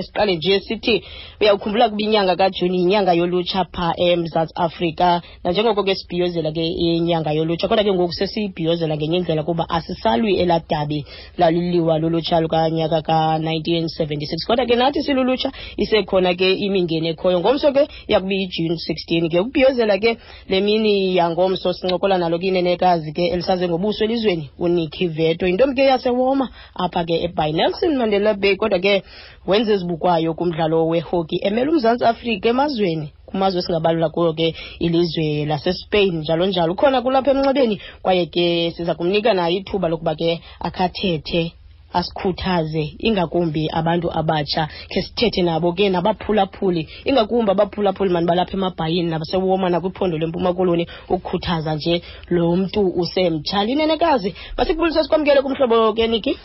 Siqale nje sithi uyawukhumbula kuba inyanga kaJuni yinyanga yolutsha pha eMzantsi Afrika, nanjengoko ke sibhiyozela ke inyanga yolutsha, kodwa ke ngoku sesiyibhiyozela ngenye indlela kuba asisalwi elaa dabi laliliwa lulutsha lukanyaka ka-1976. Kodwa ke nathi silulutsha isekhona ke imingeni ekhoyo. Ngomso ke yakuba iJuni 16 ke ukubhiyozela ke le mini yangomso, sincokola nalo ke inenekazi ke elisaze ngobuso elizweni, uNikki Veto, yintombi ke yaseWoma apha ke eBay Nelson Mandela Bay, kodwa ke wenza ezibukwayo kumdlalo wehockey emela uMzantsi Afrika emazweni, kumazwe esingabalula kuyo ke ilizwe laseSpain, njalo njalo. Ukhona kulapha emnxebeni kwaye ke siza kumnika naye ithuba lokuba ke akhathethe, asikhuthaze, ingakumbi abantu abatsha, khe sithethe nabo ke nabaphulaphuli, ingakumbi abaphulaphuli mani balapha emabhayini nabaseWoma nakwiphondo leMpuma Koloni, ukukhuthaza nje lo mntu usemtsha. Linenekazi, masikubulise sikwamkele kumhlobo ke, Niki.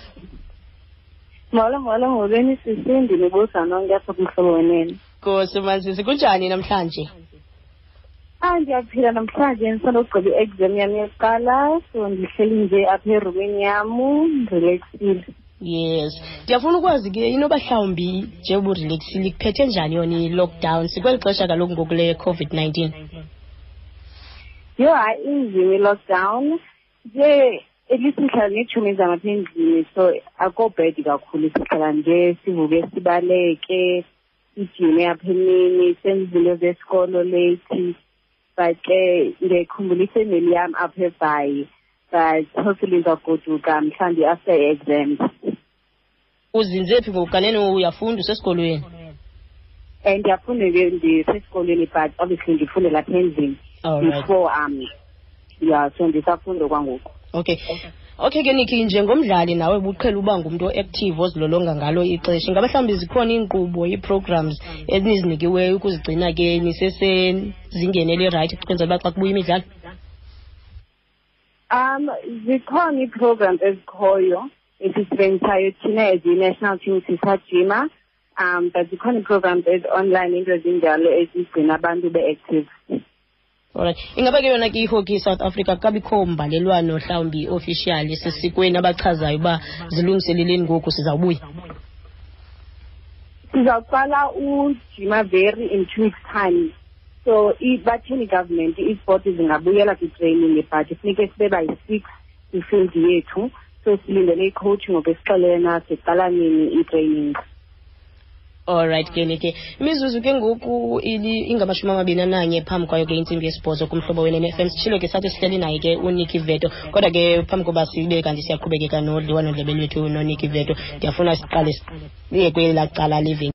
Molo, molo, molweni sisi, ndinibuza nonke apha kumhlobo wenene. Nkosi Masisi, kunjani namhlanje? Ah, ndiyaphila namhlanje, ndisandogqiba i-exam yam yokuqala, so ndihleli nje apha erumini yam, ndirelaxile. Yes, ndiyafuna ukwazi ke inoba mhlawumbi njengoba urelaxile, ikuphethe njani yona i-lockdown sikweli xesha kaloku ngoku le COVID-19? Yho, hayi, inzima i-lockdown nje. At least ndihlala neetshomi zam apha endlini, so akho bad kakhulu. Sihlala nje sivuke, sibaleke, sijime apha emini, senze izinto zesikolo late, but ke ndiyayikhumbula ifemeli yam apha eBhayi, but hopefully ndizagoduka mhlawumbi after i-exams. Uzinze phi ngoku? Kanene uyafunda, usesikolweni? Um, ndiyafunda ke, ndisesikolweni, but obviously ndifunde lapha endlini before yeah, so ndisafunda kwangoku. Okay ke Niki, njengomdlali nawe ubuqhela uba ngumntu o-active ozilolonga ngalo ixesha, ingaba mhlawumbi zikhona iinkqubo, ii-programs enizinikiweyo ukuzigcina ke nisesezingeni elirayithi ukwenzela uba xa kubuya imidlalo? Zikhona ii-programs ezikhoyo esizisebenzisayo thina as i-national team sisajima, but zikhona ii-programs ezi-online, into ezinjalo ezigcina abantu be-active. Alright, ingaba ke yona ke ihockey South Africa kabikho mbalelwano mhlawumbi official sesikweni abachazayo uba zilungiseleleni ngoku sizawubuya? Sizawuqala ujima very in 2 weeks time, so batheni government isport zingabuyela kwi-training, but funeke sibe by 6 kwifield yethu, so silindele i-coach ngoku esixelena siqala nini i-training. Alright ke Niki, imizuzu ke ngoku ingamashumi 21 phambi kwayo ke intsimbi yesibhozo kumhlobo wenene FM. Sitshilo ke sathi sihleli naye ke uNikki Veto, kodwa ke phambi koba sibe kanti siyaqhubekeka nodliwanondlebe lwethu noNikki Veto, ndiyafuna siqale siye kwelaa cala living.